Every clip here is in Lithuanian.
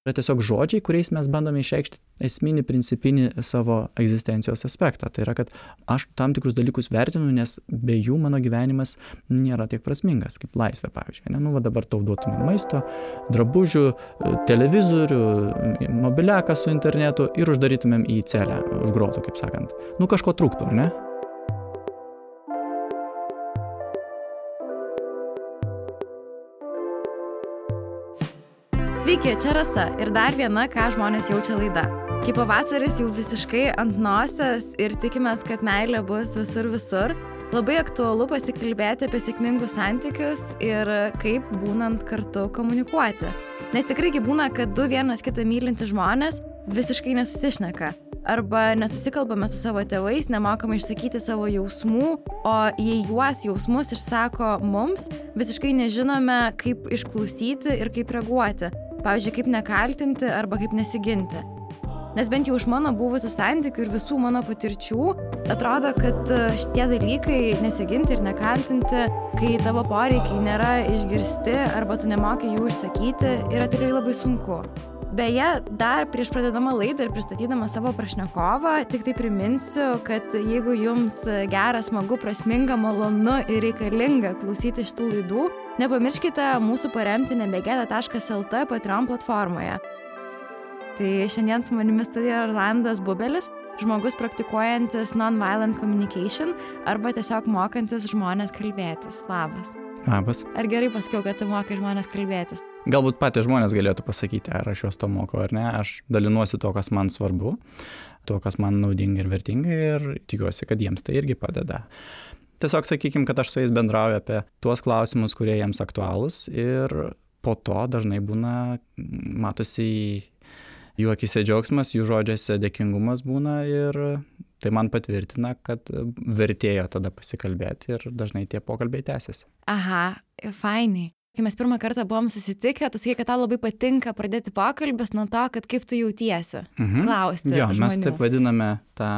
yra tiesiog žodžiai, kuriais mes bandome išreikšti esminį, principinį savo egzistencijos aspektą. Tai yra, kad aš tam tikrus dalykus vertinu, nes be jų mano gyvenimas nėra tiek prasmingas, kaip laisvė, pavyzdžiui. Va dabar tau duotume maisto, drabužių, televizorių, mobiliaką su internetu ir uždarytumėm į celę, už grotų, kaip sakant. Kažko trūktų, ar ne? Sveiki, čia Rasa ir dar viena, ką žmonės jaučia laida. Kai pavasaris jau visiškai ant nosies ir tikimės, kad meilė bus visur, labai aktualu pasikalbėti apie sėkmingus santykius ir kaip būnant kartu komunikuoti. Nes tikrai būna, kad du vienas kitą mylintys žmonės visiškai nesusišneka. Arba nesusikalbame su savo tėvais, nemokame išsakyti savo jausmų, o jei juos jausmus išsako mums, visiškai nežinome, kaip išklausyti ir kaip reaguoti. Pavyzdžiui, kaip nekaltinti arba kaip nesiginti. Nes bent jau iš mano buvusių santykių ir visų mano patirčių atrodo, kad šitie dalykai nesiginti ir nekaltinti, kai tavo poreikiai nėra išgirsti arba tu nemoki jų išsakyti, yra tikrai labai sunku. Beje, dar prieš pradedama laidą ir pristatydama savo pašnekovą, tik tai priminsiu, kad jeigu jums gera, smagu, prasminga, malonu ir reikalinga klausyti šitų laidų, nepamirškite mūsų paremti nebegėda.lt Patreon platformoje. Tai šiandien su manimi studijoje Rolandas Bubelis, žmogus praktikuojantis non-violent communication arba tiesiog mokantis žmonės kalbėtis. Labas. Labas. Ar gerai pasakiau, kad tu mokai žmonės kalbėtis? Galbūt patys žmonės galėtų pasakyti, ar aš juos to mokau ar ne. Aš dalinuosi to, kas man svarbu, to, kas man naudinga ir vertinga ir tikiuosi, kad jiems tai irgi padeda. Tiesiog sakykime, kad aš su jais bendrauju apie tuos klausimus, kurie jiems aktualūs ir po to dažnai būna, matosi jų akise džiaugsmas, jų žodžiuose dėkingumas būna ir tai man patvirtina, kad vertėjo tada pasikalbėti ir dažnai tie pokalbiai tęsiasi. Aha, fainai. Kai mes pirmą kartą buvom susitikę, tu sakei, kad tau labai patinka pradėti pokalbis nuo to, kad kaip tu jautiesi, klausti žmonių. Mes taip vadiname tą,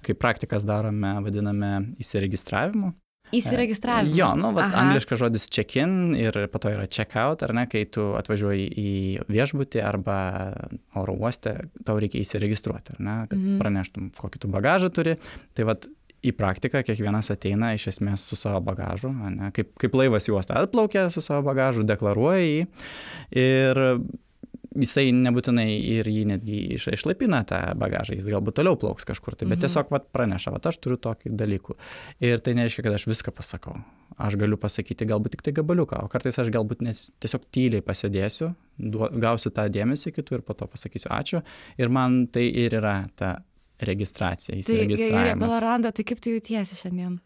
kaip praktikas darome, vadiname įsiregistravimu. Įsiregistravimas. Angliškas žodis check-in ir po to yra check-out, ar ne, kai tu atvažiuoji į viešbutį arba oro uoste, tau reikia įsiregistruoti, ar ne, kad praneštum, kokį tu bagažą turi. Tai į praktiką kiekvienas ateina iš esmės su savo bagažu, ne, kaip laivas į uostą atplaukia su savo bagažu, deklaruoja jį ir jisai nebūtinai ir jį netgi išlaipina tą bagažą, jis galbūt toliau plauks kažkur, bet tiesiog praneša, aš turiu tokį dalykų. Ir tai nereiškia, kad aš viską pasakau. Aš galiu pasakyti galbūt tik tai gabaliuką, o kartais aš galbūt tiesiog tyliai pasėdėsiu, gausiu tą dėmesį kitų ir po to pasakysiu ačiū. Ir man tai ir yra ta registracija, įsiregistravimas. Tai Rolanda, tai kaip tu jautiesi šiandien?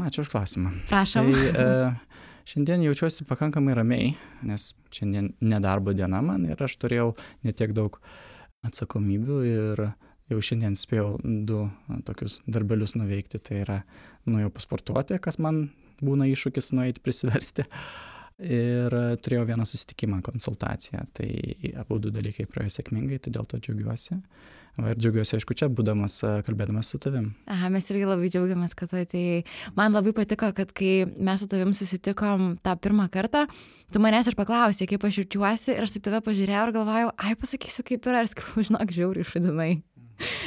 Ačiū už klausimą. Prašom. Tai šiandien jaučiuosi pakankamai ramiai, nes šiandien nedarbo diena man ir aš turėjau netiek daug atsakomybių ir jau šiandien spėjau 2 tokius darbelius nuveikti. Tai yra nuėjau pasportuoti, kas man būna iššūkis nueiti prisiversti. Ir turėjau vieną susitikimą, konsultaciją. Tai abu 2 dalykai praėjo sėkmingai, tai dėl to džiaugiuosi. Ir džiaugiuosi, aišku, čia būdamas, kalbėdamas su tavim. Aha, mes irgi labai džiaugiamės, kad tu atėjai. Man labai patiko, kad kai mes su tavim susitikom tą pirmą kartą, tu manęs ir paklausė, kaip aš jaučiuosi, ir aš tai tave pažiūrėjau ir galvojau, pasakysiu, kaip yra, ir sakau, žinok, žiauriai šudinai.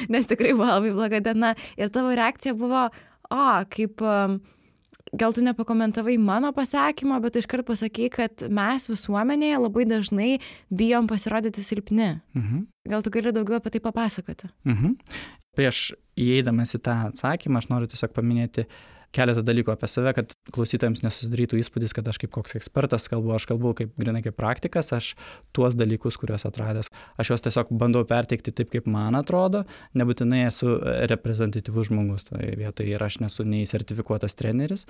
Nes tikrai buvo labai bloga diena. Ir tavo reakcija buvo, kaip... Gal tu nepakomentavai mano pasakymą, bet iškart pasakei, kad mes visuomenėje labai dažnai bijom pasirodyti silpni. Gal tu gali daugiau apie tai papasakoti? Prieš įeidamas į tą atsakymą, aš noriu tiesiog paminėti keletą dalykų apie save, kad klausytojams nesusidarytų įspūdis, kad aš kaip koks ekspertas kalbu, aš kalbu grinai kaip praktikas, aš tuos dalykus, kuriuos atradęs, aš juos tiesiog bandau perteikti taip, kaip man atrodo, nebūtinai esu reprezentatyvus žmogus, tai vietoj ir aš nesu nei sertifikuotas treneris,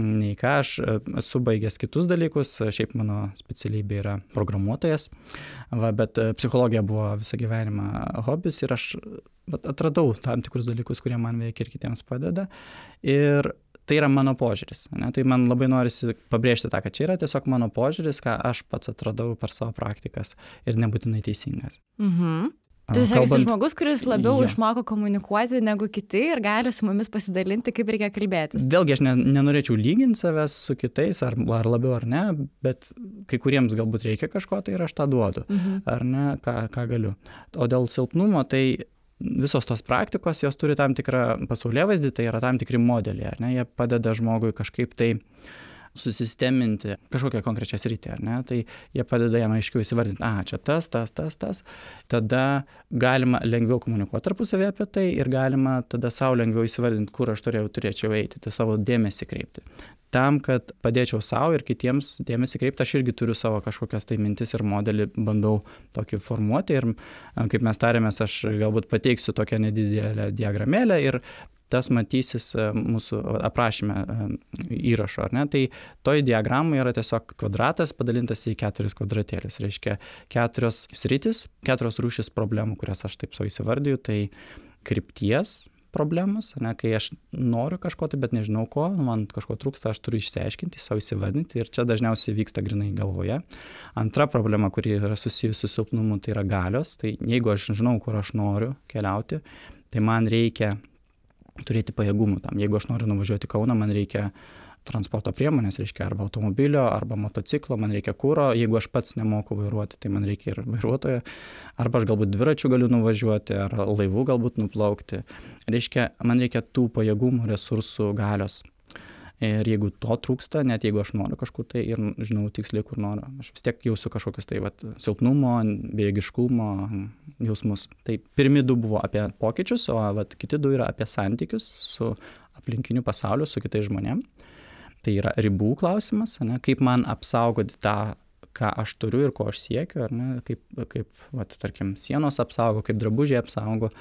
nei ką, aš esu baigęs kitus dalykus, šiaip mano specialybė yra programuotojas, bet psichologija buvo visą gyvenimą hobis ir aš atradau tam tikrus dalykus, kurie man veikia ir kitiems padeda. Ir tai yra mano požiūris. Ne? Tai man labai norisi pabrėžti tą, kad čia yra tiesiog mano požiūris, ką aš pats atradau per savo praktikas ir nebūtinai teisingas. Tu esi žmogus, kuris labiau išmoko komunikuoti negu kiti ir gali su mumis pasidalinti, kaip reikia kalbėtis. Vėlgi aš nenorėčiau lyginti savęs su kitais, ar labiau ar ne, bet kai kuriems galbūt reikia kažko, tai ir aš tą duodu, ar ne, ką galiu. O dėl silpnumo, tai visos tos praktikos, jos turi tam tikrą pasaulėvaizdį, tai yra tam tikri modeliai, ar ne, jie padeda žmogui kažkaip tai susisteminti kažkokią konkrečią sritį, ar ne, tai jie padeda jam aiškiau įsivardinti, čia tas, tada galima lengviau komunikuoti tarpusavį apie tai ir galima tada savo lengviau įsivardinti, kur aš turėčiau eiti, tai savo dėmesį kreipti. Tam, kad padėčiau savo ir kitiems dėmesį kreipti, aš irgi turiu savo kažkokias tai mintis ir modelį, bandau tokį formuoti ir kaip mes tarėmės, aš galbūt pateiksiu tokią nedidelę diagramėlę ir tas matysis mūsų aprašyme įrašo, ar ne? Tai toj diagramai yra tiesiog kvadratas padalintas į 4 kvadratėlius. Reiškia 4 sritis, 4 rūšis problemų, kurias aš taip savo įsivardiju, tai krypties problemos, ne, kai aš noriu kažko, bet nežinau ko, man kažko trūksta, aš turiu išsiaiškinti, savo įsivardinti ir čia dažniausiai vyksta grinai galvoje. Antra problema, kuri yra susijusi su silpnumu, tai yra galios. Tai jeigu aš žinau, kur aš noriu keliauti, tai man reikia turėti pajėgumų tam. Jeigu aš noriu nuvažiuoti į Kauną, man reikia transporto priemonės, reiškia arba automobilio, arba motociklo, man reikia kuro. Jeigu aš pats nemoku vairuoti, tai man reikia ir vairuotojo. Arba aš galbūt dviračiu galiu nuvažiuoti, ar laivu galbūt nuplaukti. Reiškia, man reikia tų pajėgumų, resursų, galios. Ir jeigu to trūksta, net jeigu aš noriu kažkur tai ir žinau tiksliai, kur noriu, aš vis tiek jausiu kažkokius tai silpnumo, bejėgiškumo jausmus. Tai pirmi 2 buvo apie pokyčius, o kiti 2 yra apie santykius su aplinkiniu pasauliu, su kitais žmonėm. Tai yra ribų klausimas, ne, kaip man apsaugoti tą, ką aš turiu ir ko aš siekiu, ar ne, kaip tarkim, sienos apsaugo, kaip drabužiai apsaugo.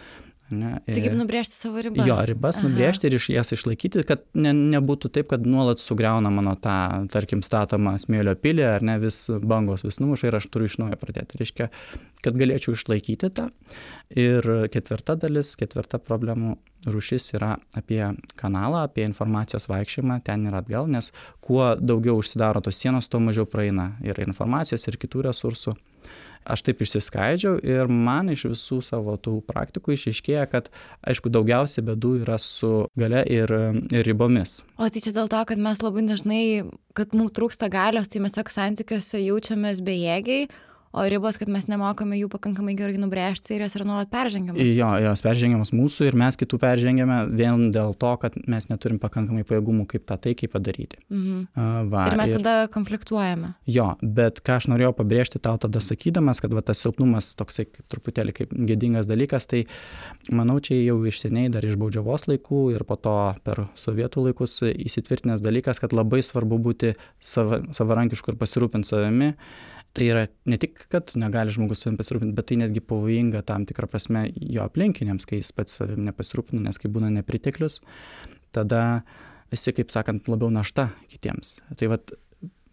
Ne, tai kaip nubrėžti savo ribas. Jo, ribas nubrėžti ir jas išlaikyti, kad nebūtų taip, kad nuolat sugriauna mano tą, tarkim, statomą smėlio pilį, ar ne, vis bangos vis numuša ir aš turiu iš naujo pradėti. Reiškia, kad galėčiau išlaikyti tą. Ir 4 dalis, 4 problemų rūšis yra apie kanalą, apie informacijos vaikščiojimą ten ir atgal, nes kuo daugiau užsidaro tos sienos, tuo mažiau praeina ir informacijos, ir kitų resursų. Aš taip išsiskaidžiau ir man iš visų savo tų praktikų išaiškėja, kad, aišku, daugiausiai bėdų yra su galia ir ribomis. O tai čia dėl to, kad mes labai dažnai, kad mums trūksta galios, tai mes tiesiog santykiuose jaučiamės bejėgiai, o ribos, kad mes nemokame jų pakankamai gerai nubrėžti ir jos yra nuolat peržengiamos. Jo, jos peržengiamos mūsų ir mes kitų peržengiame vien dėl to, kad mes neturim pakankamai pajėgumų, kaip tą taikiai padaryti. Ir mes tada konfliktuojame. Jo, bet ką aš norėjau pabrėžti tau tada sakydamas, kad tas silpnumas toksai kaip truputėlį kaip gėdingas dalykas, tai manau, čia jau iš seniai dar iš baudžiavos laikų ir po to per sovietų laikus įsitvirtinęs dalykas, kad labai svarbu būti savarankišku ir pasirūpinti savimi. Tai yra ne tik, kad negali žmogus savim pasirūpinti, bet tai netgi pavojinga tam tikrą prasme jo aplinkiniams, kai jis pats savim nepasirūpina, nes kai būna nepriteklius, tada esi, kaip sakant, labiau našta kitiems. Tai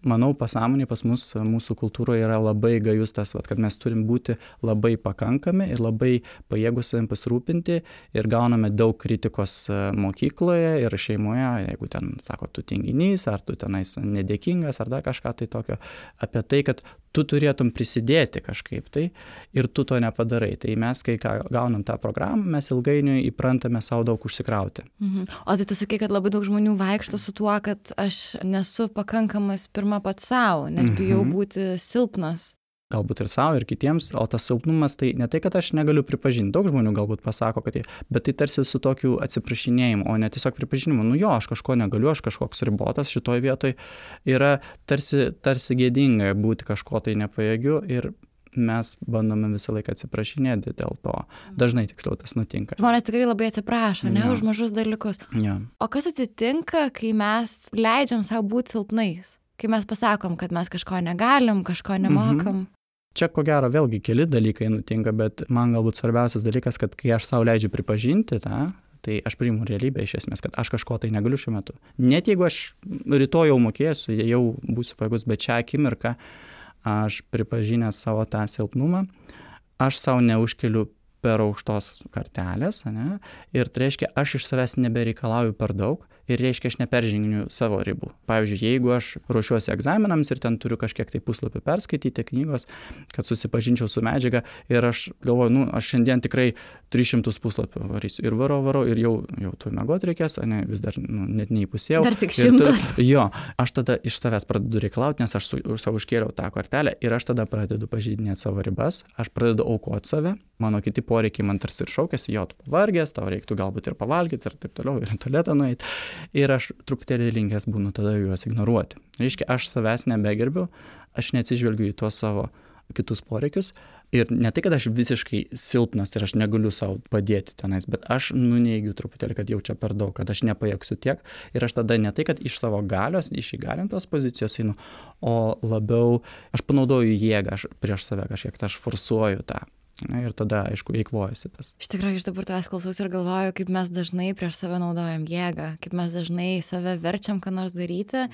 manau, pasąmonė pas mus, mūsų kultūroje yra labai gajus tas, kad mes turim būti labai pakankami ir labai pajėgus savim pasirūpinti ir gauname daug kritikos mokykloje ir šeimoje, jeigu ten sako, tu tinginys, ar tu tenais nedėkingas, ar dar kažką tai tokio, apie tai, kad tu turėtum prisidėti kažkaip tai ir tu to nepadarai. Tai mes, kai gaunam tą programą, mes ilgainiui įprantame savo daug užsikrauti. O tai tu sakai, kad labai daug žmonių vaikšto su tuo, kad aš nesu pakankamas pirma pats savo, nes bijau būti silpnas. Galbūt ir savo, ir kitiems, o tas silpnumas tai ne tai, kad aš negaliu pripažinti. Daug žmonių galbūt pasako, kad bet tai tarsi su tokiu atsiprašinėjimu, o ne tiesiog pripažinimu. Nu jo, aš kažko negaliu, aš kažkoks ribotas šitoj vietoj. Yra tarsi gėdinga būti kažko tai nepajėgiu ir mes bandome visą laiką atsiprašinėti dėl to. Dažnai tiksliau tas nutinka. Žmonės tikrai labai atsiprašo, ne, už mažus dalykus. Ja. O kas atsitinka, kai mes leidžiam savo būti silpnais? Kai mes pasakom, kad mes kažko negalim, kažko nemokam. Čia ko gero vėlgi keli dalykai nutinka, bet man galbūt svarbiausias dalykas, kad kai aš savo leidžiu pripažinti tą, tai aš priimu realybę iš esmės, kad aš kažko tai negaliu šiuo metu. Net jeigu aš rytoj jau mokėsiu, jau būsiu pajėgus, bet šią akimirką aš pripažinęs savo tą silpnumą, aš savo neužkeliu per aukštos kartelės, ne? Ir tai reiškia, aš iš savęs nebereikalauju per daug ir reiškia aš neperžengiu savo ribų. Pavyzdžiui, jeigu aš ruošiuosi egzaminams ir ten turiu kažkiek tai puslapių perskaityti knygos, kad susipažinčiau su medžiaga ir aš galvoju, aš šiandien tikrai 300 puslapių varysiu ir varau ir jau tu miegot reikės, vis dar net neįpusėjau. Dar tik 100. Jo, aš tada iš savęs pradedu reikalauti, nes aš savo užkėliau tą kortelę ir aš tada pradedu pažeidinėti savo ribas, aš pradedu aukoti save, mano kiti poreikiai man tarsi ir šaukėsi, tu pavargęs, tau reiktų galbūt ir pavalgyti ir taip toliau, ir į tualetą nueiti. Ir aš truputėlį linkęs būnu tada juos ignoruoti. Reiškia, aš savęs nebegerbiu, aš neatsižvelgiu į tuos savo kitus poreikius ir ne tai, kad aš visiškai silpnas ir aš negaliu savo padėti tenais, bet aš nuneigiu truputėlį, kad jau čia per daug, kad aš nepajėgsiu tiek ir aš tada ne tai, kad iš savo galios, iš įgalintos pozicijos einu, o labiau aš panaudoju jėgą prieš save kažkiek, aš forsuoju tą. Ir tada, aišku, eikvojasi tas. Iš tikrųjų, iš dabar tavęs klausausi ir galvoju, kaip mes dažnai prieš save naudojam jėgą, kaip mes dažnai save verčiam, ką nors daryti.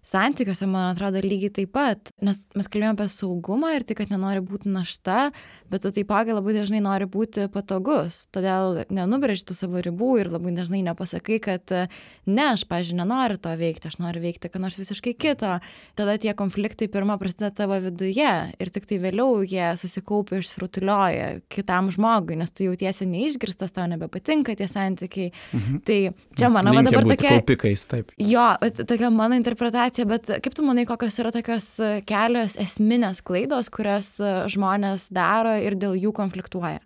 Santykiuose, man atrodo, lygiai taip pat, nes mes kalbėjome apie saugumą ir tai, kad nenori būti našta, bet tu taipogi labai dažnai nori būti patogus, todėl nenubrėži tų savo ribų ir labai dažnai nepasakai, kad ne, aš, pavyzdžiui, nenoriu to veikti, aš noriu veikti ką nors visiškai kito. Tada tie konfliktai pirmą prasideda tavo viduje ir tik tai vėliau jie susikaupia, išsirutulioja kitam žmogui, nes tu jautiesi neišgirstas, tau nebepatinka tie santykiai. Tai čia mano dabar tokia... Kaupikais, taip. Jo, tokia mano interpretacija. Bet kaip tu manai, kokios yra tokios kelios esminės klaidos, kurias žmonės daro ir dėl jų konfliktuoja?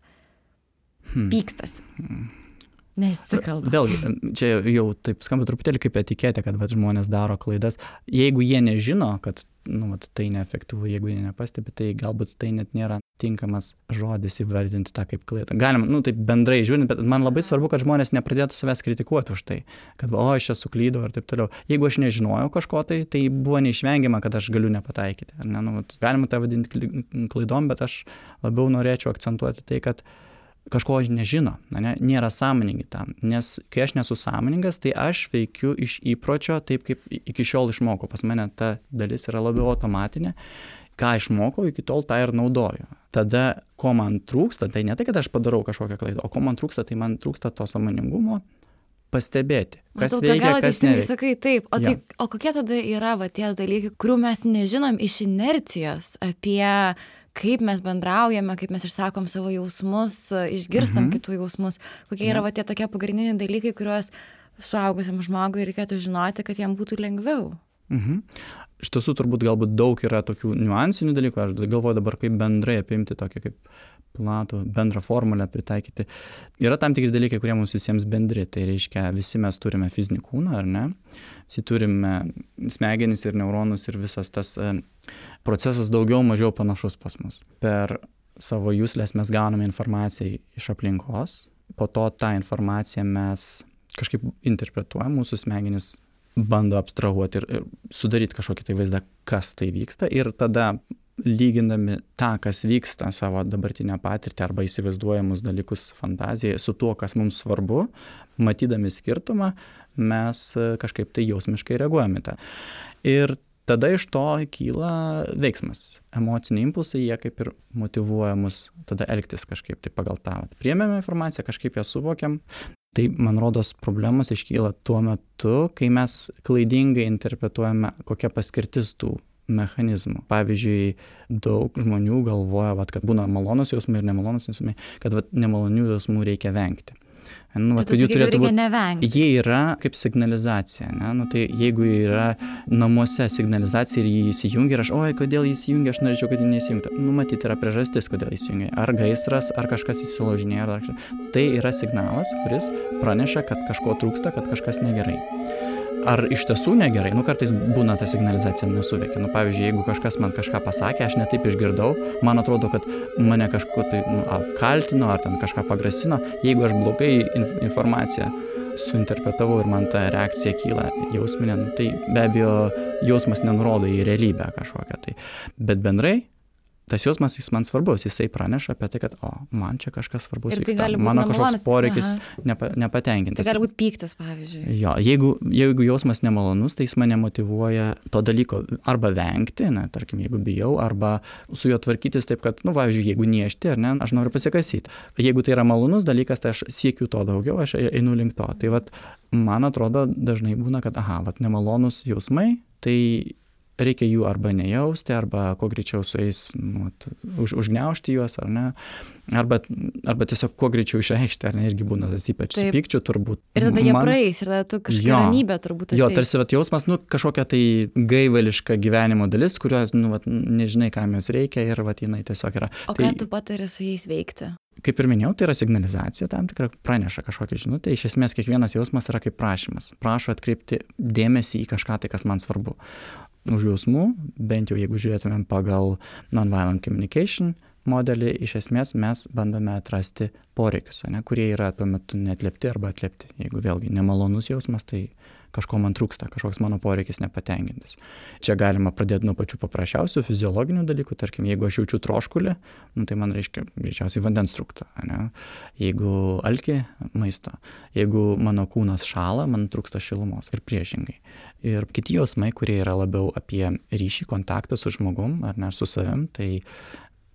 Pykstasi. Nesikalba. Vėlgi, čia jau taip skamba truputėlį kaip etiketė, kad žmonės daro klaidas. Jeigu jie nežino, kad tai neefektyvu, jeigu jie nepastebi, tai galbūt tai net nėra tinkamas žodis įvardinti tą kaip klaidą. Galima, taip bendrai žiūrint, bet man labai svarbu, kad žmonės nepradėtų savęs kritikuoti už tai, kad aš čia suklydau ir taip toliau. Jeigu aš nežinojau kažko, tai buvo neišvengiama, kad aš galiu nepataikyti. Galima tai vadinti klaidom, bet aš labiau norėčiau akcentuoti tai, kad kažko nežino, nėra sąmoningi tam. Nes kai aš nesu sąmoningas, tai aš veikiu iš įpročio taip, kaip iki šiol išmokau. Pas mane ta dalis yra labiau automatinė. Ką išmokau, iki tol tą ir naudoju. Tada, ko man trūksta, tai ne tai, kad aš padarau kažkokią klaidą, o ko man trūksta, tai man trūksta to sąmoningumo pastebėti, kas veikia, kas neveikia. Sakai, taip. O kokie tada yra tie dalykai, kurių mes nežinom iš inercijos apie kaip mes bendraujame, kaip mes išsakom savo jausmus, išgirstam kitų jausmus, kokie yra tie tokie pagrindiniai dalykai, kuriuos suaugusiam žmogui reikėtų žinoti, kad jam būtų lengviau. Iš tiesų turbūt galbūt daug yra tokių niuansinių dalykų, aš galvoju dabar kaip bendrai apimti tokį kaip platų bendrą formulę pritaikyti. Yra tam tikri dalykai, kurie mums visiems bendri, tai reiškia visi mes turime fizinį kūną, ar ne? Visi turime smegenis ir neuronus ir visas tas procesas daugiau mažiau panašus pas mus. Per savo juslės mes gauname informaciją iš aplinkos, po to tą informaciją mes kažkaip interpretuojam, mūsų smegenis bando abstrahuoti ir sudaryti kažkokį tai vaizdą, kas tai vyksta ir tada lygindami tą, kas vyksta savo dabartinę patirtį arba įsivaizduojamus dalykus fantazijoje su tuo, kas mums svarbu, matydami skirtumą, mes kažkaip tai jausmiškai reaguojame tą. Ir tada iš to kyla veiksmas. Emociniai impulsai, jie kaip ir motyvuoja mus tada elgtis kažkaip tai pagal tą. Priėmėme informaciją, kažkaip ją suvokiam. Tai, man rodos, problemos iškyla tuo metu, kai mes klaidingai interpretuojame, kokia paskirtis tų mechanizmų. Pavyzdžiui, daug žmonių galvoja, kad būna malonus jausmai ir nemalonus jausmai, kad nemalonių jausmų reikia vengti. Kad jų turėtų būti. Jie yra kaip signalizacija. Tai jeigu yra namuose signalizacija ir jį įsijungia ir aš, kodėl jį įsijungia, aš norėčiau, kad jį neįsijungtų. Matyt, yra priežastis, kodėl įsijungia. Ar gaisras, ar kažkas įsilaužinėja. Tai yra signalas, kuris praneša, kad kažko trūksta, kad kažkas negerai. Ar iš tiesų negerai? Kartais būna ta signalizacija nesuveikia. Pavyzdžiui, jeigu kažkas man kažką pasakė, aš netaip išgirdau, man atrodo, kad mane kažko tai apkaltino ar ten kažką pagrasino. Jeigu aš blogai informaciją suinterpretavau ir man ta reakcija kyla jausminė, tai be abejo jausmas nenurodo į realybę kažkokią tai. Bet bendrai tas jausmas, jis man svarbus, jisai praneša apie tai, kad, man čia kažkas svarbus vyksta, tai mano kažkoks poreikis nepatenkintas. Tai gali būti pyktis, pavyzdžiui. Jo, jeigu jausmas nemalonus, tai jis mane motyvuoja to dalyko arba vengti, tarkim, jeigu bijau, arba su juo tvarkytis taip, kad, pavyzdžiui, jeigu niešti, ar ne, aš noriu pasikasyti. Jeigu tai yra malonus dalykas, tai aš siekiu to daugiau, aš einu link to. Tai man atrodo, dažnai būna, kad, nemalonus jausmai, tai reikia jų arba nejausti, arba kuo greičiau su jais užgniaužti juos, ar ne, arba tiesiog kuo greičiau išreikšti, ar ne, irgi būna tas ypač su pykčiu turbūt. Ir tada jie praeis, ir tada tu kažkokia ramybė turbūt ateis. Jo, tarsi jausmas, kažkokia tai gaivališka gyvenimo dalis, kurios, nežinai, kam jos reikia, ir jinai tiesiog yra. O ką tu patari su jais veikti? Kaip ir minėjau, tai yra signalizacija, tam tikra praneša kažkokią žinutę. Iš esmės, kiekvienas jausmas yra kaip prašymas. Prašo atkreipti dėmesį į kažką, tai kas man svarbu. Už jausmų, bent jau jeigu žiūrėtumėm pagal nonviolent communication modelį, iš esmės mes bandome atrasti poreikius, kurie yra tuo metu neatliepti arba atliepti. Jeigu vėlgi nemalonus jausmas, tai kažko man trūksta, kažkoks mano poreikis nepatenkintas. Čia galima pradėti nuo pačių paprasčiausių fiziologinių dalykų, tarkim, jeigu aš jaučiu troškulį, tai man reiškia greičiausiai vandens trūksta, jeigu alkį, maisto, jeigu mano kūnas šąla, man trūksta šilumos ir priešingai. Ir kiti jausmai, kurie yra labiau apie ryšį, kontaktą su žmogum, ar ne, su savim, tai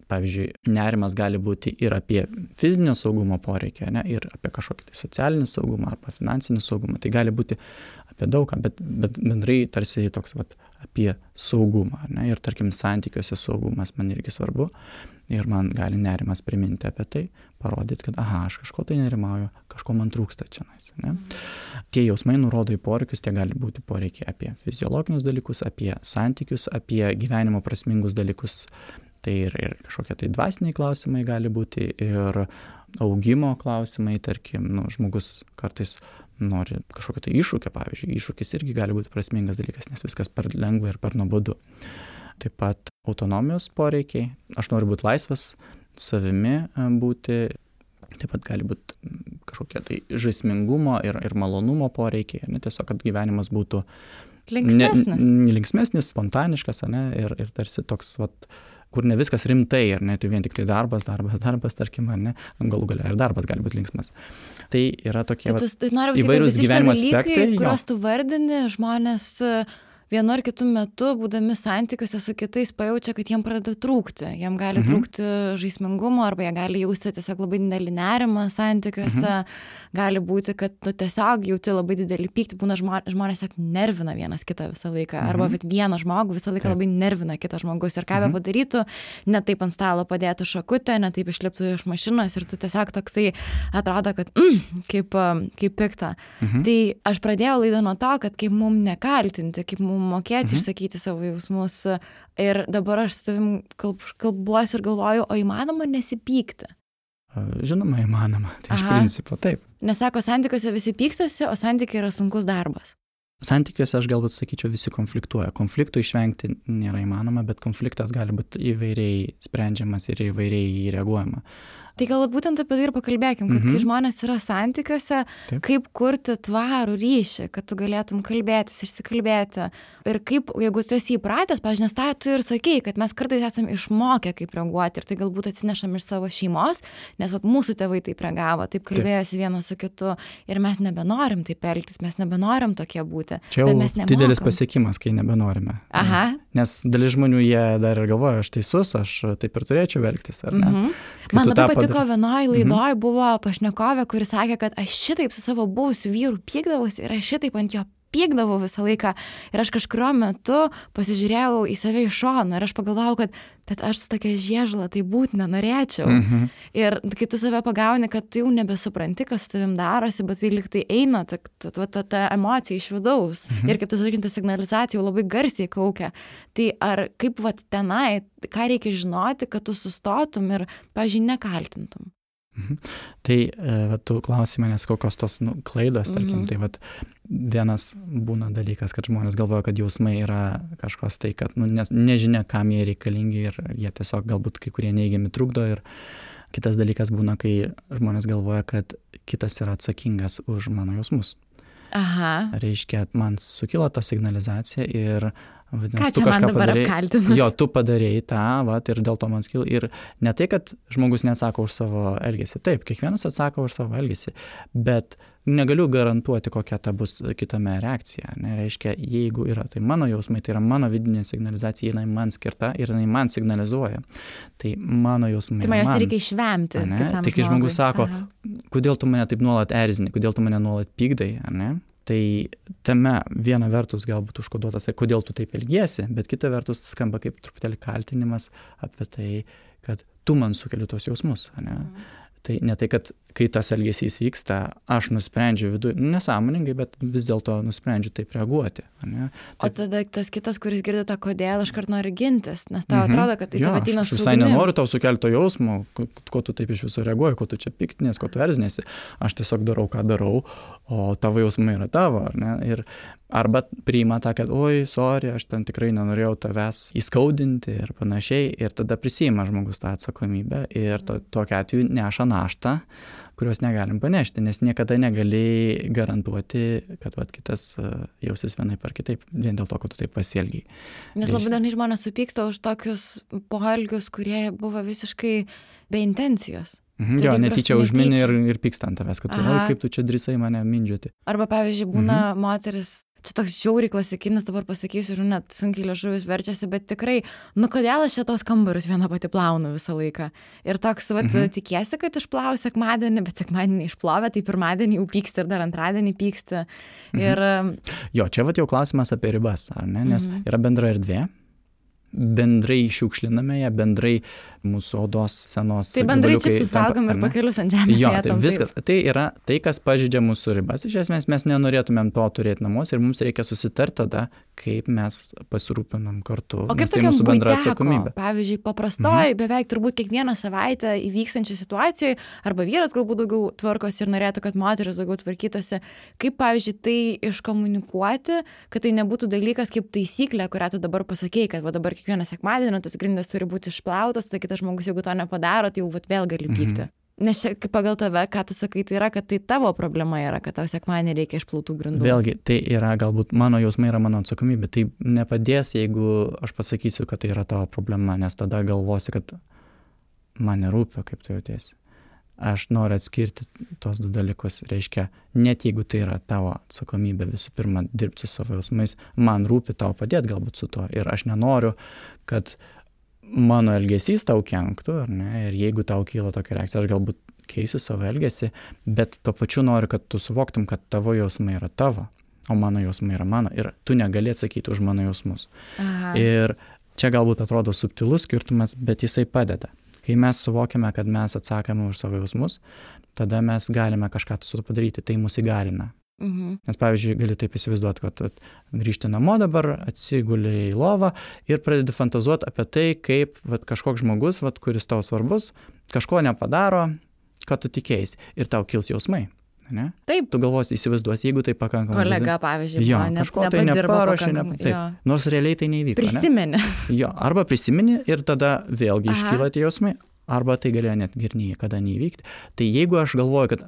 pavyzdžiui, nerimas gali būti ir apie fizinio saugumo poreikį, ir apie kažkokį tai socialinį saugumą arba finansinį saugumą. Tai gali būti apie daugą, bet bendrai tarsi toks apie saugumą. Ir tarkim, santykiuose saugumas man irgi svarbu. Ir man gali nerimas priminti apie tai, parodyti, kad aš kažko tai nerimauju, kažko man trūksta čia. Tie jausmai nurodo į poreikius, tie gali būti poreikiai apie fiziologinius dalykus, apie santykius, apie gyvenimo prasmingus dalykus. Tai ir kažkokie tai dvasiniai klausimai gali būti, ir augimo klausimai, tarkim, žmogus kartais nori kažkokio tai iššūkio, pavyzdžiui, iššūkis irgi gali būti prasmingas dalykas, nes viskas per lengva ir per nuobodu. Taip pat autonomijos poreikiai, aš noriu būti laisvas, savimi būti, taip pat gali būti kažkokie tai žaismingumo ir malonumo poreikiai, tiesiog, kad gyvenimas būtų linksmesnis, spontaniškas, ir tarsi toks, kur ne viskas rimtai, ar ne, tai vien tik tai darbas, tarkim, ar ne, galų gale ir darbas gali būti linksmas. Tai yra tokie įvairūs gyvenimo aspektai. Kuriuos tu vardini, žmonės vienu ar kitu metu, būdami santykiuose su kitais, pajaučia, kad jiem pradeda trūkti. Jiem gali trūkti žaismingumo, arba jie gali jausti tiesiog labai didelį nerimą santykiuose. Gali būti, kad tu tiesiog jauti labai didelį pyktį. Būna žmonės nervina vienas kitą visą laiką. Arba vieną žmogų visą laiką labai nervina kitas žmogus. Ir ką be padarytų, ne taip ant stalo padėtų šakutę, ne taip išliptų iš mašinos, ir tu tiesiog toksai atrodo, kad kaip pikta. Tai aš pradėjau laidą nuo to, kad kaip mum nekaltinti, kaip mum mokėti išsakyti savo jausmus. Ir dabar aš su tavim kalbuosiu ir galvoju, o įmanoma nesipykti? Žinoma, įmanoma. Tai iš principo taip. Nes sako, santykiuose visi pykstasi, o santykiai yra sunkus darbas. Santykiuose aš galbūt sakyčiau, visi konfliktuoja. Konfliktų išvengti nėra įmanoma, bet konfliktas gali būti įvairiai sprendžiamas ir įvairiai reaguojama. Tai galbūt būtent apie tai ir pakalbėkim, kad kai žmonės yra santykiuose, kaip kurti tvarų ryšį, kad tu galėtum kalbėtis, išsikalbėti. Ir kaip, jeigu tu esi įpratęs, pavyzdžiui, nes tą tu ir sakei, kad mes kartais esame išmokę, kaip reaguoti, ir tai galbūt atsinešam iš savo šeimos, nes mūsų tėvai taip reagavo, taip kalbėjosi vienas su kitu, ir mes nebenorim taip elgtis, mes nebenorim tokie būti. Čia jau didelis pasiekimas, kai nebenorime. Nes dalis žmonių jie dar ir galvoja, aš teisus, aš taip ir turėčiau elgtis, ar ne? Man labai patiko vienoj laidoj buvo pašnekovė, kuri sakė, kad aš šitaip su savo buvusiu vyru pykdavausi ir aš šitaip ant jo pykdavau visą laiką. Ir aš kažkurio metu pasižiūrėjau į save iš šono ir aš pagalvojau, kad bet aš su tokia žiežula tai būt nenorėčiau. Ir kai tu save pagauni, kad tu jau nebesupranti, kas su tavim darosi, bet tai lyg tai eina ta emocija iš vidaus. Ir kaip tu sakinti, signalizacija jau labai garsiai kaukia. Tai ar kaip tenai, ką reikia žinoti, kad tu sustotum ir, pavyzdžiui, nekaltintum? Tai tu klausai manęs, kokios tos klaidos, tarkim, tai vienas būna dalykas, kad žmonės galvoja, kad jausmai yra kažkos tai, kad nežinia, kam jie reikalingi ir jie tiesiog galbūt kai kurie neigiami trukdo. Ir kitas dalykas būna, kai žmonės galvoja, kad kitas yra atsakingas už mano jausmus. Aha. Reiškia, man sukilo ta signalizacija ir vadinasi, Ką tu čia man kažką dabar padarei. apkaltinus? Jo, tu padarėjai tą, vat, ir dėl to man skilo. Ir ne tai, kad žmogus neatsako už savo elgesį. Taip, kiekvienas atsako už savo elgesį, bet negaliu garantuoti, kokia ta bus kitame reakcija. Reiškia, jeigu yra tai mano jausmai, tai yra mano vidinė signalizacija, jinai man skirta ir jinai man signalizuoja. Tai mano jausmai. Tai man jos reikia išvemti. Tai kai žmogus sako, kodėl tu mane taip nuolat erzini, kodėl tu mane nuolat pykdai, ne? Tai tame viena vertus galbūt užkoduotas, kodėl tu taip elgiesi, bet kita vertus skamba kaip truputėlį kaltinimas apie tai, kad tu man sukeli tos jausmus, ne? Tai ne tai, kad kai tas elgesys vyksta, aš nusprendžiu viduje, nesąmoningai, bet vis dėlto nusprendžiu taip reaguoti. Ne? O tada tas kitas, kuris girdi tą kodėl, iškart nori gintis, nes tau atrodo, kad tai tave ateina su visai nenoriu tau sukelti to jausmo, ko tu taip iš viso reaguoji, ko tu čia piktinės, ko tu erzinėsi. Aš tiesiog darau, ką darau, o tavo jausmai yra tavo, ar ne? Ir arba priima tą, kad oi, sorry, aš ten tikrai nenorėjau tavęs įskaudinti ir panašiai, ir tada prisiima žmogus tą atsakomybę ir tokiu atveju neša naštą, kurios negalim panešti, nes niekada negali garantuoti, kad kitas jausis vienaip ar kitaip, vien dėl to, kad tu taip pasielgiai. Nes labai dažnai žmonės supyksta už tokius poelgius, kurie buvo visiškai be intencijos. Jo, netyčia užmini ir pyksta ant tavęs, kad oi, kaip tu čia drįsai mane mindžioti. Arba, pavyzdžiui, būna moteris, čia toks žiauriai klasikinis, dabar pasakysiu, ir net sunkiai liežuvis verčiasi, bet tikrai, kodėl aš čia tos kambarius viena pati plaunu visą laiką. Ir toks, tikiesi, kad išplau sekmadienį, bet sekmadienį išplovė, tai pirmadienį jau pyksti ir dar antradienį pyksti. Ir... Jo, čia jau klausimas apie ribas, ar ne? Nes yra bendra erdvė. Bendrai šiukšliname ją, bendrai mūsų odos senos. Tai bendrai čipsus valgom ir pakelius ant žemės. Jo, tai viskas. Tai yra tai, kas pažeidžia mūsų ribas. Iš esmės mes nenorėtumėm to turėti namuose ir mums reikia susitarti tada, kaip mes pasirūpinam kartu. O kaip tai mūsų bendra atsakomybė. Pavyzdžiui, paprastoj, beveik turbūt kiekvieną savaitę įvykstančią situacijoje, arba vyras galbūt daugiau tvarkosi ir norėtų, kad moteris daugiau tvarkytųsi. Kaip, pavyzdžiui, tai iškomunikuoti, kad tai nebūtų dalykas kaip taisyklė, kurią tu dabar pasakei, kad va dabar kiekvieną sekmadienį tos grindys turi būti išplautos, tai kitas žmogus, jeigu to nepadaro, tai jau vėl gali pykti. Nes čia pagal tave, ką tu sakai, tai yra, kad tai tavo problema yra, kad tau sekmadienį reikia išplautų grindų. Vėlgi, tai yra galbūt mano jausmai, yra mano atsakomybė. Tai nepadės, jeigu aš pasakysiu, kad tai yra tavo problema, nes tada galvosi, kad man nerūpi, kaip tu jautiesi. Aš noriu atskirti tos du dalykus. Reiškia, net jeigu tai yra tavo atsakomybė, visų pirma, dirbti su savo jausmais, man rūpi tau padėti galbūt su tuo. Ir aš nenoriu, kad mano elgesys tau kenktų, ar ne? Ir jeigu tau kyla tokia reakcija, aš galbūt keisiu savo elgesį, bet tuo pačiu noriu, kad tu suvoktum, kad tavo jausmai yra tavo, o mano jausmai yra mano. Ir tu negali atsakyti už mano jausmus. Aha. Ir čia galbūt atrodo subtilus skirtumas, bet jisai padeda. Kai mes suvokiame, kad mes atsakome už savo jausmus, tada mes galime kažką su to padaryti, tai mus įgalina. Nes, pavyzdžiui, gali taip įsivaizduoti, kad grįžti namo dabar, atsiguli į lovą ir pradedi fantazuoti apie tai, kaip kažkoks žmogus, kuris tau svarbus, kažko nepadaro, kad tu tikėjai ir tau kils jausmai. Ne? Taip. Tu galvosi, įsivaizduosi, jeigu tai pakankamai. Kolega, pavyzdžiui, kažko tai neparuošė, nors realiai tai neįvyko. Prisimeni. Jo, arba prisimeni ir tada vėlgi iškyla tie jausmai, arba tai galėjo net ir niekada neįvykti. Tai jeigu aš galvoju, kad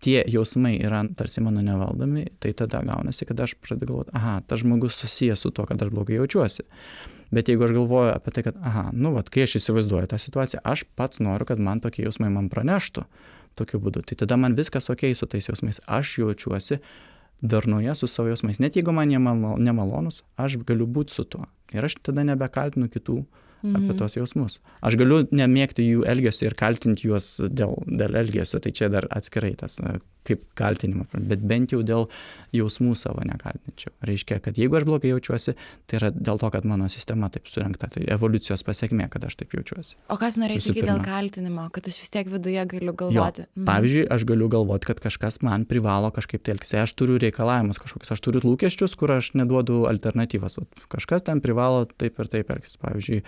tie jausmai yra tarsi mano nevaldomi, tai tada gaunasi, kad aš pradedu galvoti, tas žmogus susijęs su to, kad aš blogai jaučiuosi. Bet jeigu aš galvoju apie tai, kad, kai aš įsivaizduoju tą situaciją, aš pats noriu, kad man tokie jausmai man praneštų tokiu būdu. Tai tada man viskas okei su tais jausmais. Aš jaučiuosi darnoje su savo jausmais. Net jeigu man jie nemalonus, aš galiu būti su tuo. Ir aš tada nebekaltinu kitų apie tos jausmus. Aš galiu nemėgti jų elgesio ir kaltinti juos dėl elgesio. Tai čia dar atskirai tas kaip kaltinimą, bet bent jau dėl jausmų savo nekaltinčiau. Reiškia, kad jeigu aš blogai jaučiuosi, tai yra dėl to, kad mano sistema taip surinkta, tai evoliucijos pasekmė, kad aš taip jaučiuosi. O kas norėjai sakyti dėl kaltinimo, kad aš vis tiek viduje galiu galvoti? Pavyzdžiui, aš galiu galvoti, kad kažkas man privalo kažkaip tai elgtis. Aš turiu reikalavimus kažkokius, aš turiu lūkesčius, kur aš neduodu alternatyvas. Kažkas ten privalo taip ir taip elgtis. Pavyzdžiui,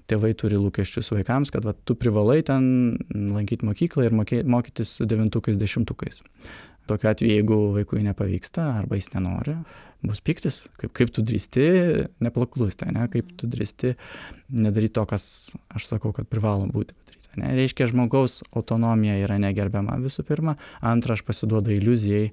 tėvai turi lūkesčius vaikams, kad tu privalai ten lankyti mokyklą ir mokytis 9-10. Tokiu atveju, jeigu vaikui nepavyksta arba jis nenori, bus pyktis, kaip tu drįsti nepaklusti, ne? Kaip tu drįsti nedaryti to, kas aš sakau, kad privalo būti padaryta. Ne? Reiškia, žmogaus autonomija yra negerbiama visų pirma. Antra, aš pasiduodu iliuzijai,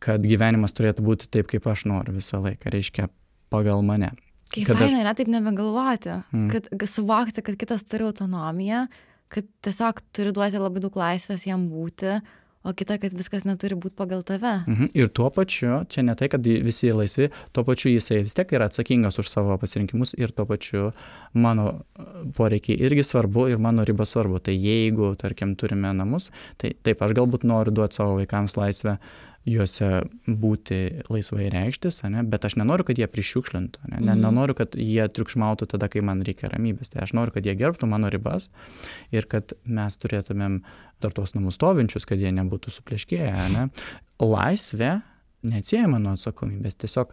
kad gyvenimas turėtų būti taip, kaip aš noriu visą laiką, reiškia pagal mane. Kaip faina yra taip nebegalvoti, kad suvokti, kad kitas turi autonomiją, kad tiesiog turi duoti labai daug laisvės jam būti, o kita, kad viskas neturi būti pagal tave. Ir tuo pačiu, čia ne tai, kad visi laisvi, tuo pačiu jisai vis tiek yra atsakingas už savo pasirinkimus ir tuo pačiu mano poreikiai irgi svarbu ir mano riba svarbu. Tai jeigu, tarkim, turime namus, tai taip, aš galbūt noriu duoti savo vaikams laisvę juose būti laisvai reikštis, bet aš nenoriu, kad jie prišiukšlintų, nenoriu, kad jie triukšmautų tada, kai man reikia ramybės. Tai aš noriu, kad jie gerbtų mano ribas ir kad mes turėtumėm dar tos namus stovinčius, kad jie nebūtų supleškėję. Laisvė neatsiejama nuo atsakomybės, tiesiog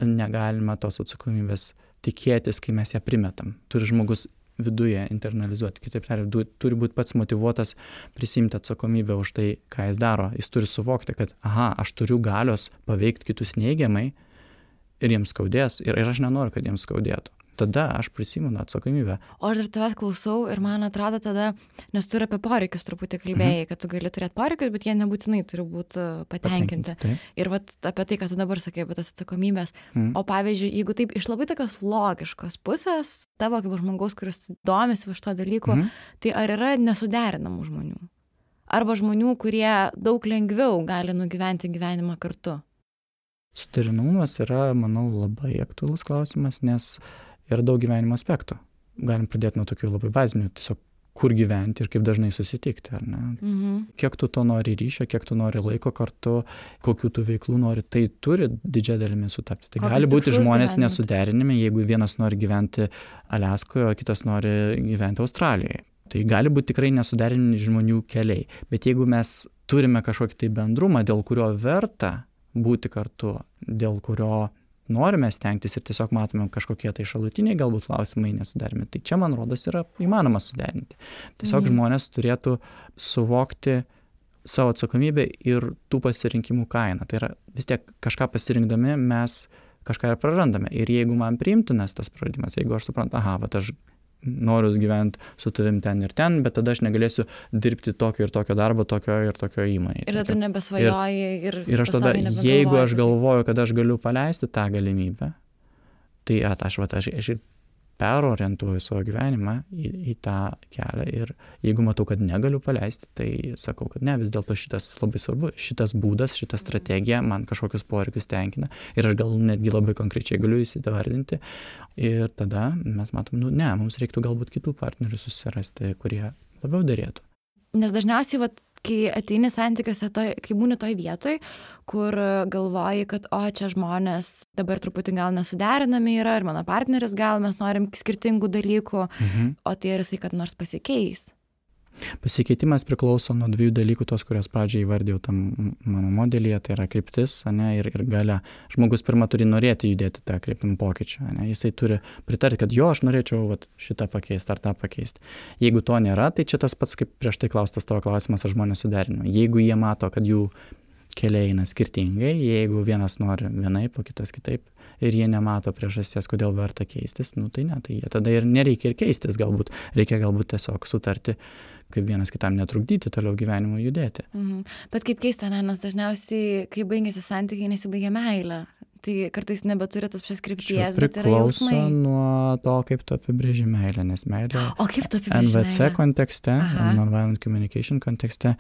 negalima tos atsakomybės tikėtis, kai mes ją primetam. Turi žmogus viduje internalizuoti. Kitaip tariant, turi būti pats motyvuotas prisimti atsakomybę už tai, ką jis daro. Jis turi suvokti, kad aš turiu galios paveikti kitus neigiamai ir jiems skaudės. Ir aš nenoriu, kad jiems skaudėtų. Tada aš prisimu atsakomybę. O aš dar tavęs klausau ir man atrodo tada, nes tu ir apie poreikius truputį kalbėjai, kad tu gali turėti poreikius, bet jie nebūtinai turi būti patenkinti. Ir vat apie tai, ką tu dabar sakai, apie tas atsakomybės. O pavyzdžiui, jeigu taip iš labai tokios logiškos pusės, tavo kaip žmogaus, kuris domisi va šito dalyko, tai ar yra nesuderinamų žmonių? Arba žmonių, kurie daug lengviau gali nugyventi gyvenimą kartu? Suderinamumas yra, manau, labai aktualus klausimas, nes yra daug gyvenimo aspektų. Galim pradėti nuo tokių labai bazinių, tiesiog kur gyventi ir kaip dažnai susitikti, ar ne? Kiek tu to nori ryšio, kiek tu nori laiko kartu, kokių tu veiklų nori, tai turi didžiąją dalimi sutapti. Tai gali būti žmonės nesuderinami, jeigu vienas nori gyventi Aliaskoje, o kitas nori gyventi Australijoje. Tai gali būti tikrai nesuderinami žmonių keliai. Bet jeigu mes turime kažkokį tai bendrumą, dėl kurio verta būti kartu, dėl kurio norime stengtis ir tiesiog matome kažkokie tai šalutiniai galbūt klausimai nesuderimi. Tai čia, man rodos, yra įmanoma suderinti. Tiesiog žmonės turėtų suvokti savo atsakomybę ir tų pasirinkimų kainą. Tai yra vis tiek kažką pasirinkdami mes kažką ir prarandame. Ir jeigu man priimtinas tas praradimas, jeigu aš suprantu, aš noriu gyventi su tavim ten ir ten, bet tada aš negalėsiu dirbti tokio ir tokio darbo, tokio ir tokio įmonėje. Ir tada tu nebesvajoji ir aš tada, jeigu aš galvoju, kad aš galiu paleisti tą galimybę, tai aš ir perorientuoju savo gyvenimą į tą kelią ir jeigu matau, kad negaliu paleisti, tai sakau, kad ne, vis dėlto šitas labai svarbu, šitas būdas, šita strategija man kažkokius poreikius tenkina ir aš gal netgi labai konkrečiai galiu įsivardinti ir tada mes matom, mums reiktų galbūt kitų partnerių susirasti, kurie labiau derėtų. Nes dažniausiai, kai ateini santykiuose, kai būni toj vietoj, kur galvoji, kad čia žmonės dabar truputį gal nesuderinami yra ir mano partneris gal mes norim skirtingų dalykų, o tai ir jisai kad nors pasikeis. Pasikeitimas priklauso nuo dviejų dalykų, tos, kurios pradžiai įvardėjau tam mano modelyje, tai yra kryptis, ir galia. Žmogus pirmą turi norėti judėti tą kryptimą pokyčių, jisai turi pritarti, kad aš norėčiau šitą pakeisti ar tą pakeisti. Jeigu to nėra, tai čia tas pats, kaip prieš tai klaustas tavo klausimas, ar žmonės suderinami. Jeigu jie mato, kad jų keliai eina skirtingai, jeigu vienas nori vienaip, o kitas kitaip, ir jie nemato priežasties, kodėl verta keistis, tai ne, tai jie tada ir nereikia ir keistis galbūt. Reikia galbūt tiesiog sutarti, kaip vienas kitam netrukdyti toliau gyvenimo judėti. Bet kaip keista, nes dažniausiai, kai baigėsi santykiai, nesibaigia meilė. Tai kartais nebeturi tos pačios krypties, bet yra jausmai. Priklauso nuo to, kaip tu apibrėži meilę, nes meilė NVC kontekste, Nonviolent Communication kontekste,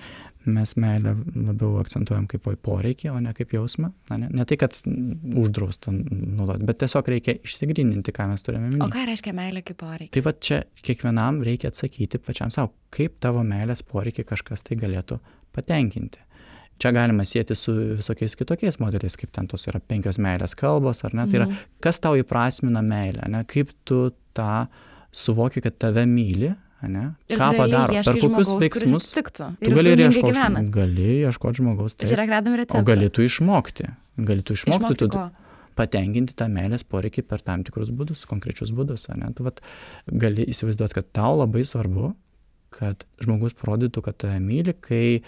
mes meilę labiau akcentuojam kaip poreikį, o ne kaip jausmą. Ne tai, kad uždrausta naudoti, bet tiesiog reikia išsigryninti, ką mes turime minėti. O ką reiškia meilė kaip poreikis? Tai čia kiekvienam reikia atsakyti pačiam savo, kaip tavo meilės poreikį kažkas tai galėtų patenkinti. Čia galima sieti su visokiais kitokiais modeliais, kaip ten tos yra 5 meilės kalbos, ar ne? Tai yra, kas tau įprasmina meilę, kaip tu tą suvoki, kad tave myli, ką padaro, per kokius veiksmus. Tu gali ieškoti žmogaus, o gali tu išmokti. Tu patenkinti tą meilės poreikį per tam tikrus būdus, konkrečius būdus. Tu gali įsivaizduoti, kad tau labai svarbu, kad žmogus parodytų, kad tave myli, kai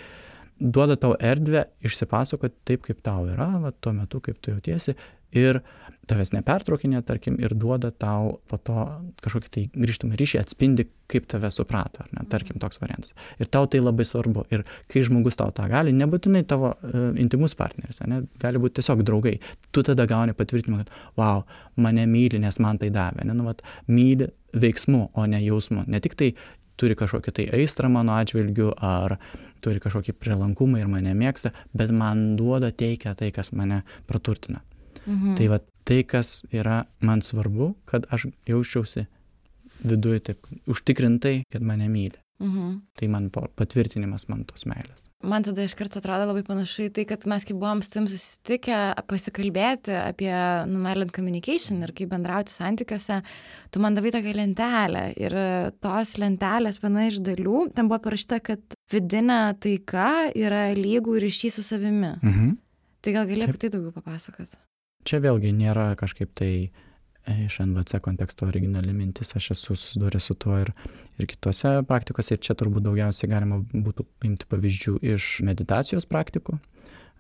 duoda tau erdvę išsipasakoti taip, kaip tau yra, tuo metu, kaip tu jautiesi, ir tavęs nepertraukinė, tarkim, ir duoda tau po to kažkokį tai grįžtamą ryšį, atspindi, kaip tave suprato, ar ne, tarkim, toks variantas. Ir tau tai labai svarbu. Ir kai žmogus tau tą gali, nebūtinai tavo intimus partneris, ne, gali būti tiesiog draugai. Tu tada gauni patvirtinimą, kad, wow, mane myli, nes man tai davė. Ne, nu, vat, myli veiksmu, o ne jausmu. Ne tik tai turi kažkokį tai aistrą mano atžvilgiu, ar turi kažkokį prielankumą ir mane mėgsta, bet man duoda, teikia tai, kas mane praturtina. Tai va, tai, kas yra man svarbu, kad aš jausčiausi viduje taip užtikrintai, kad mane myli. Tai man patvirtinimas man tos meilės. Man tada iš karto atrodo labai panašu į tai, kad mes kaip buvom su tim susitikę pasikalbėti apie nonviolent communication ir kaip bendrauti santykiuose, tu man davai tokią lentelę ir tos lentelės viena iš dalių, ten buvo parašyta, kad vidinė taika yra lygų ryšys su savimi. Tai gal gali apie tai daugiau papasakoti? Čia vėlgi nėra kažkaip tai iš NVC konteksto originali mintis, aš esu susidūręs su tuo ir kitose praktikose, ir čia turbūt daugiausiai galima būtų paimti pavyzdžių iš meditacijos praktikų,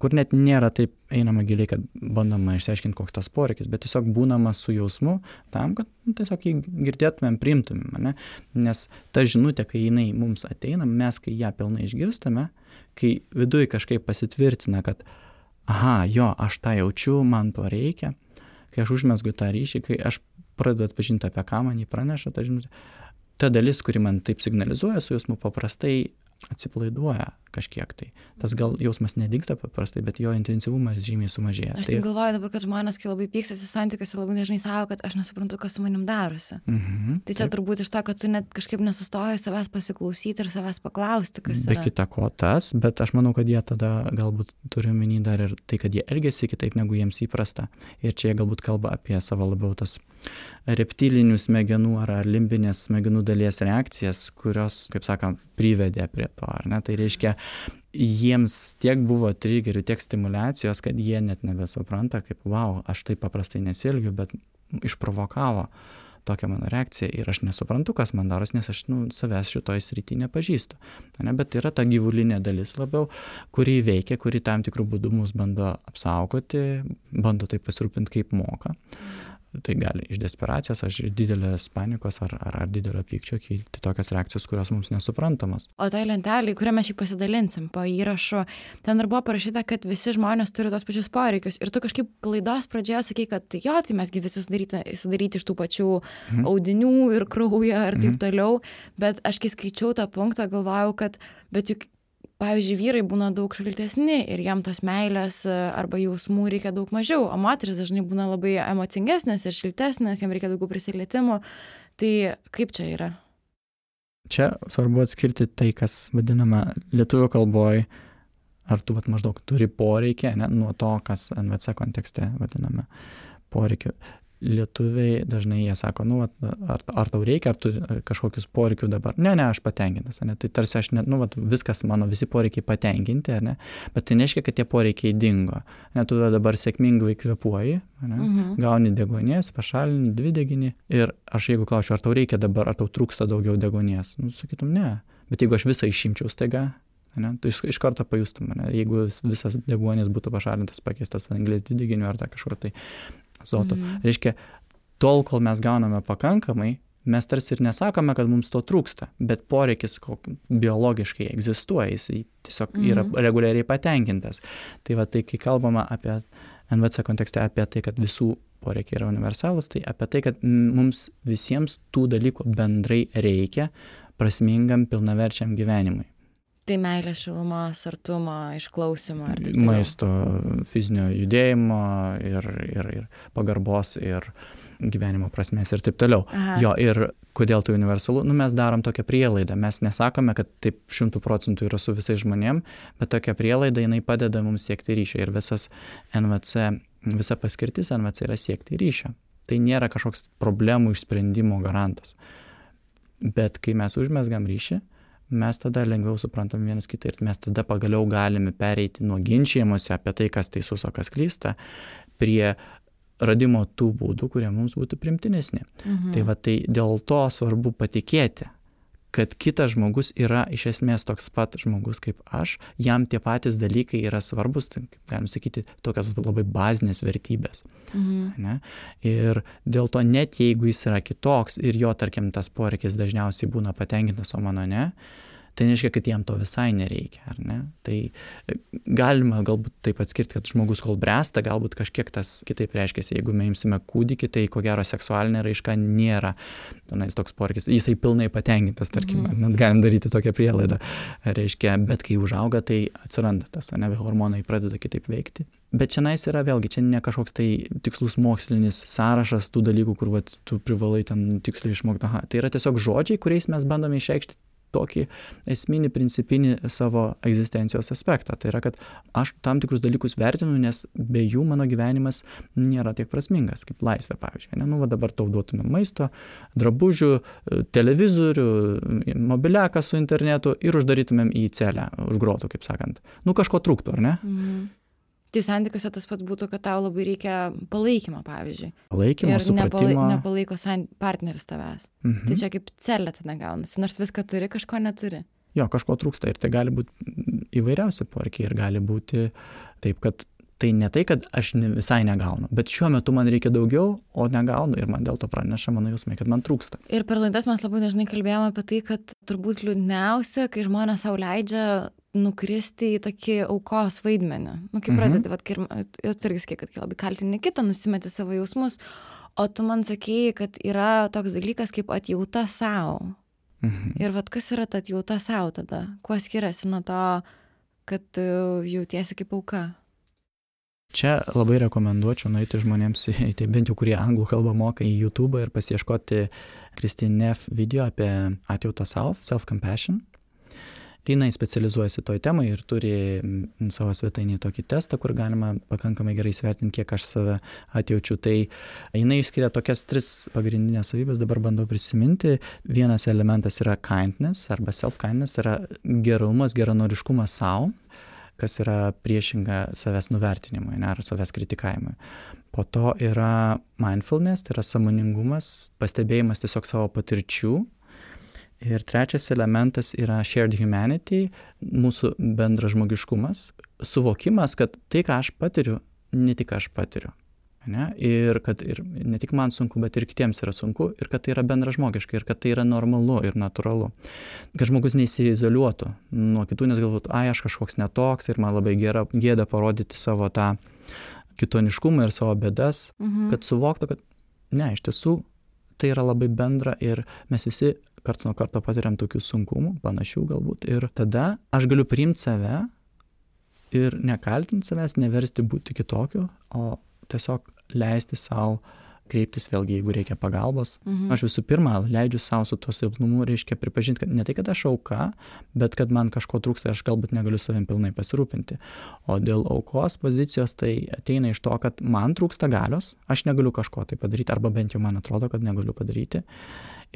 kur net nėra taip einama giliai, kad bandoma išsiaiškinti, koks tas poreikis, bet tiesiog būnama su jausmu tam, kad tiesiog jį girdėtumėm, priimtumėm, ne? Nes ta žinutė, kai jinai mums ateina, mes kai ją pilnai išgirstame, kai viduje kažkaip pasitvirtina, kad aha, jo, aš tą jaučiu, man to reikia, kai aš užmesgu tą ryšį, kai aš pradedu atpažinti, apie ką man jį praneša, ta žinutė, ta dalis, kuri man taip signalizuoja su jausmu, paprastai atsipalaiduoja kažkiek tai. Tas gal jausmas nedingsta paprastai, bet jo intensyvumas žymiai sumažėja. Aš taip galvoju dabar, kad žmonės, kai labai pykstasi santykiuose, labai dažnai sako, kad aš nesuprantu, kas su manim darosi. Tai čia turbūt iš to, kad tu net kažkaip nesustoji savęs pasiklausyti ir savęs paklausti, kas yra. Be kita ko tas, bet aš manau, kad jie tada galbūt turi omeny dar ir tai, kad jie elgiasi kitaip, negu jiems įprasta. Ir čia jie galbūt kalba apie savo labiau tas reptilinių smegenų ar limbinės smegenų dalies reakcijas, kurios, kaip sakant, privedė prie to, ar ne? Tai reiškia, jiems tiek buvo trigerių, tiek stimulacijos, kad jie net nebesupranta, kaip, wow, aš taip paprastai nesielgiu, bet išprovokavo tokią mano reakciją ir aš nesuprantu, kas man daros, nes aš savęs šitoj srity nepažįstu. Ne? Bet yra ta gyvulinė dalis labiau, kuri veikia, kuri tam tikrų būdų mus bando apsaugoti, bando taip pasirūpinti, kaip moka. Tai gali iš desperacijos, iš didelės panikos ar didelio pykčio kilti tokios reakcijos, kurios mums nesuprantamos. O tai lentelė, kurią mes šį pasidalinsim po įrašu, ten ir buvo parašyta, kad visi žmonės turi tos pačius poreikius. Ir tu kažkaip laidos pradžioje sakei, kad jo, tai mesgi visi sudaryti iš tų pačių audinių ir kraujo ir taip toliau. Bet aš kai skaičiau tą punktą, galvojau, kad bet juk pavyzdžiui, vyrai būna daug šaltesni ir jam tos meilės arba jausmų reikia daug mažiau, o moteris dažnai būna labai emocingesnės ir šiltesnės, jam reikia daugiau prisilietimų. Tai kaip čia yra? Čia svarbu atskirti tai, kas vadinama lietuvių kalboj, ar tu maždaug turi poreikį, ne, nuo to, kas NVC kontekste vadiname poreikiu. Lietuviai dažnai jie sako, ar tau reikia, ar tu kažkokius poreikių dabar. Ne, aš patenkintas, ne? Tai tarsi aš, viskas mano, visi poreikiai patenkinti, ne? Bet tai nereiškia, kad tie poreikiai dingo. Ne, tu dabar sėkmingai kvėpuoji, gauni deguonies, pašalini dvideginį ir aš jeigu klausiu, ar tau reikia dabar, ar tau trūksta daugiau deguonies, sakytum, ne. Bet jeigu aš visą išimčiau staiga, ne, tu iš karto pajustum, ne? Jeigu visas deguonis būtų pašalintas, pakeistas anglies dvideginiu ar kažkur tai azoto. Reiškia, tol, kol mes gauname pakankamai, mes tarsi ir nesakome, kad mums to trūksta, bet poreikis biologiškai egzistuoja, jis tiesiog yra reguliariai patenkintas. Tai tai, kai kalbama apie NVC kontekste, apie tai, kad visų poreikiai yra universalūs, tai apie tai, kad mums visiems tų dalykų bendrai reikia prasmingam, pilnaverčiam gyvenimui. Tai meilė, šilumos, artumo, išklausimo ir taip toliau. Maisto, fizinio judėjimo ir pagarbos ir gyvenimo prasmės ir taip toliau. Jo, ir kodėl tai universalu? Mes darom tokią prielaidą. Mes nesakome, kad taip 100% yra su visais žmonėm, bet tokia prielaida, jinai padeda mums siekti ryšio. Ir visa paskirtis NVC yra siekti ryšio. Tai nėra kažkoks problemų išsprendimo garantas. Bet kai mes užmezgam ryšį, mes tada lengviau suprantam vienas kitą ir mes tada pagaliau galime pereiti nuo ginčijimuose apie tai, kas teisus, o kas klysta, prie radimo tų būdų, kurie mums būtų primtinesni. Tai dėl to svarbu patikėti, kad kitas žmogus yra iš esmės toks pat žmogus kaip aš, jam tie patys dalykai yra svarbus, tai, galim sakyti, tokios labai bazinės vertybės. Ne? Ir dėl to net jeigu jis yra kitoks ir jo, tarkim, tas poreikis dažniausiai būna patenkintas, o mano ne, tai nereiškia, kad jam to visai nereikia, ar ne? Tai galima galbūt taip atskirti, kad žmogus kol bręsta, galbūt kažkiek tas kitaip reiškiasi. Jeigu mes imsime kūdikį, tai ko gero seksualinė raiška nėra toks poreikis. Jisai pilnai patenkintas, tarkim, net galim daryti tokią prielaidą. Reiškia, bet kai užauga, tai atsiranda tas, ne, hormonai pradeda kitaip veikti. Bet šiandien yra vėlgi, čia ne kažkoks tai tikslus mokslinis sąrašas tų dalykų, kur vat, tu privalai ten tiksliai išmokti. Tai yra tiesiog žodžiai, kuriais mes bandome išreikšti tokį esminį, principinį savo egzistencijos aspektą. Tai yra, kad aš tam tikrus dalykus vertinu, nes be jų mano gyvenimas nėra tiek prasmingas, kaip laisvė, pavyzdžiui. Ne? Nu, va dabar tau duotume maisto, drabužių, televizorių, mobiliaką su internetu ir uždarytumėm į celę, už grotų, kaip sakant. Nu, kažko trūktų, ar ne? Tai santykiuose tas pat būtų, kad tau labai reikia palaikymo, pavyzdžiui. Palaikymo, supratimo. Ir nepalaiko partneris tavęs. Tai čia kaip celė tada gaunasi, nors viską turi, kažko neturi. Jo, kažko trūksta ir tai gali būti įvairiausi poreikiai ir gali būti taip, kad tai ne tai, kad aš visai negaunu, bet šiuo metu man reikia daugiau, o negaunu ir man dėl to praneša mano jausmai, kad man trūksta. Ir per laidas mes labai dažnai kalbėjome apie tai, kad turbūt liūdniausia, kai žmonės sau leidžia nukristi į tokį aukos vaidmenį. Nu, kaip pradedi, jau irgi sakė, kad labai kaltini kitą, nusimeti savo jausmus, o tu man sakėjai, kad yra toks dalykas kaip atjauta savo. Ir kas yra ta atjauta savo tada? Kuo skiriasi nuo to, kad tu jautiesi kaip auka? Čia labai rekomenduočiau nueiti žmonėms, tai bent jau kurie anglų kalbą moka, į YouTube ir pasiieškoti Christine Neff video apie atjautą savo, self-compassion. Jinai specializuojasi toj temai ir turi savo svetainį tokį testą, kur galima pakankamai gerai įsivertinti, kiek aš save atjaučiu. Tai jinai išskiria tokias 3 pagrindinės savybės, dabar bandau prisiminti. Vienas elementas yra kindness arba self-kindness, yra gerumas, geranoriškumas savo, kas yra priešinga savęs nuvertinimui, ne, ar savęs kritikavimui. Po to yra mindfulness, tai yra sąmoningumas, pastebėjimas tiesiog savo patirčių. Ir trečias elementas yra shared humanity, mūsų bendras žmogiškumas, suvokimas, kad tai, ką aš patiriu, ne tik aš patiriu. Ne? Ir kad ir ne tik man sunku, bet ir kitiems yra sunku, ir kad tai yra bendražmogiška, ir kad tai yra normalu ir natūralu. Kad žmogus neįsiizoliuotų nuo kitų, nes galvotų, aš kažkoks netoks ir man labai gėda parodyti savo tą kitoniškumą ir savo bėdas, kad suvoktų, kad ne, iš tiesų tai yra labai bendra ir mes visi karts nuo karto patiriam tokių sunkumų, panašių galbūt. Ir tada aš galiu priimti save ir nekaltinti savęs, neversti būti kitokiu, o tiesiog leisti savo kreiptis vėlgi, jeigu reikia pagalbos. Aš visų pirma leidžiu savo su tuo silpnumu, reiškia pripažinti, kad ne tai, kad aš auka, bet kad man kažko trūksta, aš galbūt negaliu savim pilnai pasirūpinti. O dėl aukos pozicijos tai ateina iš to, kad man trūksta galios, aš negaliu kažko tai padaryti, arba bent jau man atrodo, kad negaliu padaryti.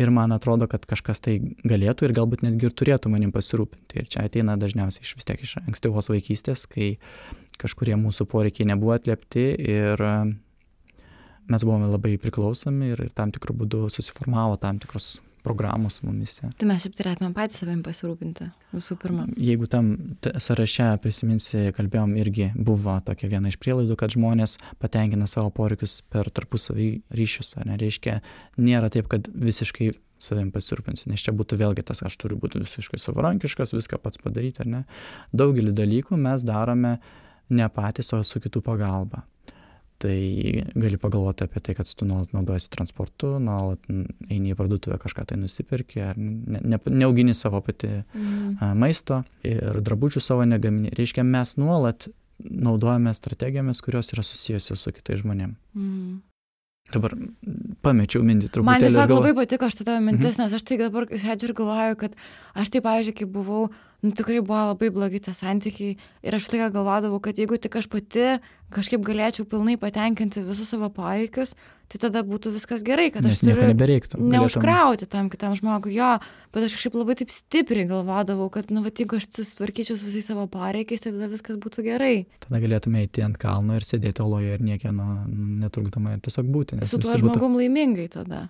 Ir man atrodo, kad kažkas tai galėtų ir galbūt netgi ir turėtų manim pasirūpinti. Ir čia ateina dažniausiai vis tiek iš ankstyvos vaikystės, kai kažkurie mūsų poreikiai nebuvo atliepti ir mes buvome labai priklausomi ir tam tikrų būdų susiformavo tam tikros programos mumise. Tai mes šiaip turėtume patys savim pasirūpinti visų pirma. Jeigu tam sąraše prisiminsi, kalbėjom, irgi buvo tokia viena iš prielaidų, kad žmonės patenkina savo poreikius per tarpusavį ryšius, ar nereiškia, nėra taip, kad visiškai savim pasirūpinsiu, nes čia būtų vėlgi tas, aš turiu būti visiškai savarankiškas, viską pats padaryti, ar ne. Daugelį dalykų mes darome ne patys, o su kitų pagalba. Tai gali pagalvoti apie tai, kad tu nuolat naudojasi transportu, nuolat eini į parduotuvę kažką tai nusipirki, ar neaugini savo pati maisto ir drabužių savo negamini. Reiškia, mes nuolat naudojame strategijomis, kurios yra susijusios su kitais žmonėmis. Dabar pamečiau mintį truputėlį. Man tiesiog labai patiko šitą tavo mintis, nes aš tai dabar sėdžiu ir galvoju, kad aš tai, pavyzdžiui, kai buvau, tikrai buvo labai blogi tie santykiai ir aš galvodavau, kad jeigu tik aš pati kažkaip galėčiau pilnai patenkinti visus savo poreikius, tai tada būtų viskas gerai, kad Nes aš turiu neužkrauti tam kitam žmogui jo, bet aš kažkaip labai taip stipriai galvodavau, kad, jeigu aš susitvarkyčiau su visais savo poreikiais, tai tada viskas būtų gerai. Tada galėtume eiti ant kalno ir sėdėti oloje ir niekieno netrukdomai ir tiesiog būti. Su tuo žmogum laimingai tada.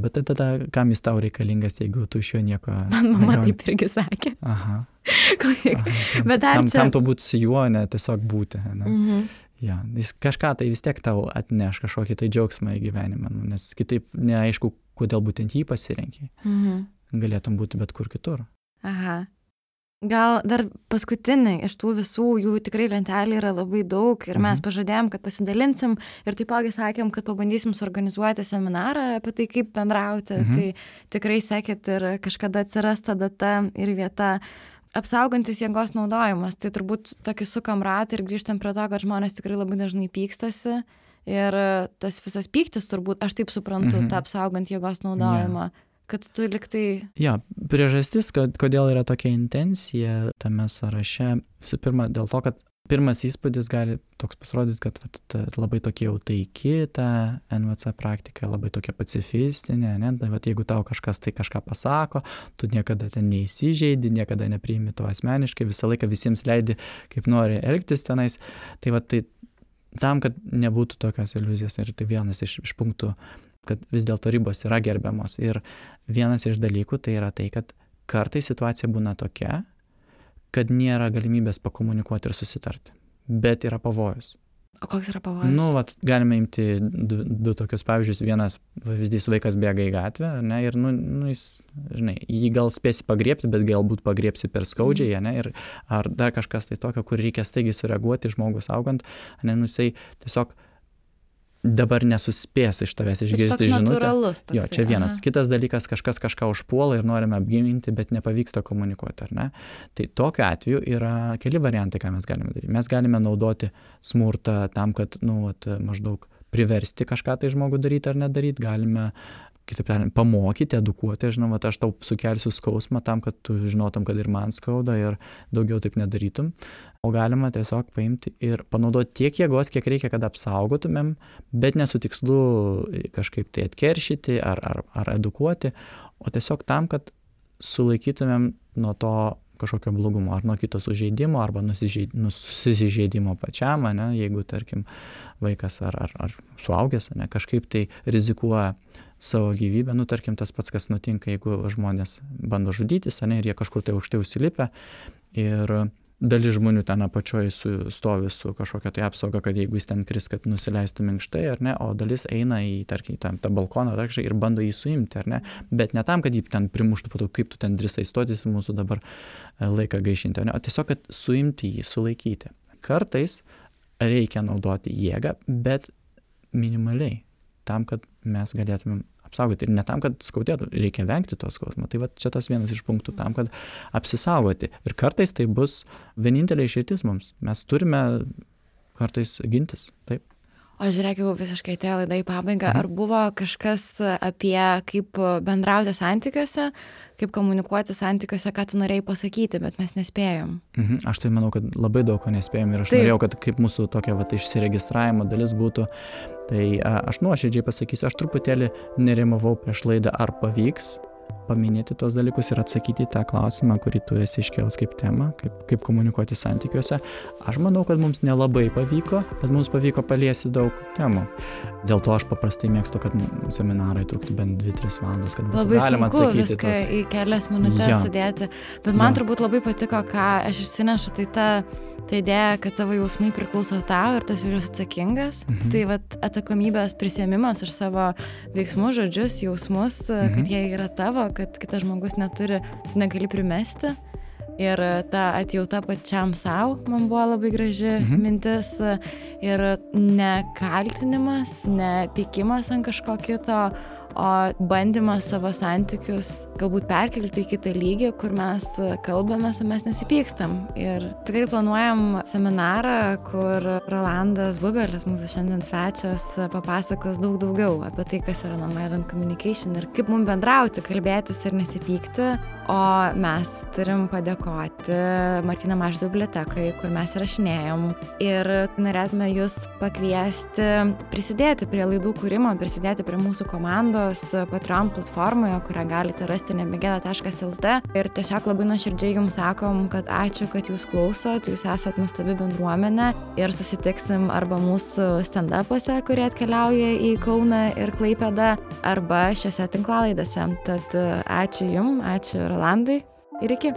Bet tada kam jis tau reikalingas, jeigu tu iš jo nieko... Man mama taip irgi sakė. Aha. Bet dar čia... Kam tu būti su juo, ne tiesiog būti. Ne? Ja, jis kažką tai vis tiek tau atneš, kažkokį tai džiaugsmą į gyvenimą, nes kitaip neaišku, kodėl būtent jį pasirenki. Galėtum būti bet kur kitur. Aha. Gal dar paskutiniai iš tų visų, jų tikrai lentelė yra labai daug ir mes pažadėjom, kad pasidalinsim ir taipogi sakėm, kad pabandysim suorganizuoti seminarą apie tai, kaip bendrauti. Tai tikrai sekit ir kažkada atsiras ta data ir vieta. Apsaugantis jėgos naudojimas, tai turbūt tokį sukam ratą ir grįžtam prie to, kad žmonės tikrai labai dažnai pykstasi ir tas visas pyktis turbūt, aš taip suprantu, tą apsaugant jėgos naudojimą, kad tu liktai... Priežastis, kodėl yra tokia intencija tame sąraše, visų pirma, dėl to, kad pirmas įspūdis gali toks pasirodyti, kad labai tokia jau taiki ta NVC praktika, labai tokia pacifistinė, ne? Jeigu tau kažkas tai kažką pasako, tu niekada ten neįsižeidi, niekada nepriimi to asmeniškai, visą laiką visiems leidi, kaip nori elgtis tenais. Tai tam, kad nebūtų tokios iliuzijos, ir tai vienas iš punktų, kad vis dėlto ribos yra gerbiamos. Ir vienas iš dalykų tai yra tai, kad kartais situacija būna tokia, kad nėra galimybės pakomunikuoti ir susitarti, bet yra pavojus. O koks yra pavojus? Galime imti du tokius pavyzdžius. Vienas pavyzdys, vaikas bėga į gatvę, ne, ir jis, žinai, jį gal spėsi pagriebti, bet galbūt pagriebsi per skaudžiai, ne, ir ar dar kažkas tai tokio, kur reikia staigiai sureaguoti žmogus augant, ne, jisai tiesiog dabar nesuspės iš tavęs išgirsti žinutę. Jo, čia vienas. Kitas dalykas, kažkas kažką užpuola ir norime apginti, bet nepavyksta komunikuoti, ar ne? Tai tokiu atveju yra keli variantai, ką mes galime daryti. Mes galime naudoti smurtą tam, kad, maždaug priversti kažką tai žmogų daryti ar nedaryti. Galime, kitaip tariant, pamokyti, edukuoti. Žinau, aš tau sukelsiu skausmą tam, kad tu žinotum, kad ir man skauda ir daugiau taip nedarytum. O galima tiesiog paimti ir panaudoti tiek jėgos, kiek reikia, kad apsaugotumėm, bet ne su tikslu kažkaip tai atkeršyti ar edukuoti, o tiesiog tam, kad sulaikytumėm nuo to kažkokio blogumo, ar nuo kito sužeidimo, arba nusižeidimo pačiam, ne, jeigu, tarkim, vaikas ar suaugęs, ne, kažkaip tai rizikuoja savo gyvybę, tarkim, tas pats, kas nutinka, jeigu žmonės bando žudytis, ne, ir jie kažkur tai aukštai užsilipę, ir dalis žmonių ten apačioj stovi su kažkokia tai apsauga, kad jeigu jis ten kris, kad nusileistų minkštai, ar ne, o dalis eina į, tarkim, tą balkoną ir bando jį suimti, ar ne, bet ne tam, kad jį ten primuštų, po to, kaip tu ten drįsai stotis, mūsų dabar laiką gaišinti, o tiesiog, kad suimti jį, sulaikyti. Kartais reikia naudoti jėgą, bet minimaliai, tam, kad mes galėtumėm apsaugoti. Ir ne tam, kad skaudėtų, reikia vengti to skausmo. Tai čia tas vienas iš punktų tam, kad apsisaugoti. Ir kartais tai bus vienintelė išeitis mums. Mes turime kartais gintis. Taip. O žiūrėk, jau visiškai atėjo laida į pabaigą. Ar buvo kažkas apie kaip bendrauti santykiuose, kaip komunikuoti santykiuose, ką tu norėjai pasakyti, bet mes nespėjom? Aš tai manau, kad labai daug ko nespėjom ir aš norėjau, kad kaip mūsų tokia išsiregistravimo dalis būtų. Tai aš nuoširdžiai pasakysiu, aš truputėlį nerimavau prieš laidą, ar pavyks paminėti tos dalykus ir atsakyti į tą klausimą, kurį tu esi iškėlęs kaip temą, kaip komunikuoti santykiuose. Aš manau, kad mums nelabai pavyko, bet mums pavyko paliesti daug temų. Dėl to aš paprastai mėgstu, kad seminarai truktų bent 2-3 valandas, kad būtų galima atsakyti. Labai sunku viską į kelias minutės sudėti, bet man turbūt labai patiko, ką aš išsinešu, tai ta idėja, kad tavo jausmai priklauso tau ir tas vyras atsakingas. Tai atsakomybės prisiėmimas už savo veiksmus, žodžius, jausmus, kad jie yra tavo, kad kitas žmogus neturi, tu negali primesti. Ir ta atjauta pačiam savo man buvo labai graži mintis. Ir ne kaltinimas, ne pykimas ant kažko kito, o bandymas savo santykius galbūt perkelti į kitą lygį, kur mes kalbamės, o mes nesipykstam. Ir tikrai planuojam seminarą, kur Rolandas Bubelis, mūsų šiandien svečias, papasakos daug daugiau apie tai, kas yra nonviolent communication ir kaip mums bendrauti, kalbėtis ir nesipykti. O mes turim padėkoti Martyno Mažvydo bibliotekai, kur mes įrašinėjom. Ir norėtume jūs pakviesti prisidėti prie laidų kūrimo, prisidėti prie mūsų komandos Patreon platformoje, kurią galite rasti nebegėda.lt. Ir tiesiog labai nuoširdžiai jums sakom, kad ačiū, kad jūs klausot, jūs esat nuostabi bendruomenė ir susitiksim arba mūsų stand-upuose, kurie atkeliauja į Kauną ir Klaipėdą, arba šiose tinklalaidėse. Tad ačiū jums, ačiū Rolandai ir iki.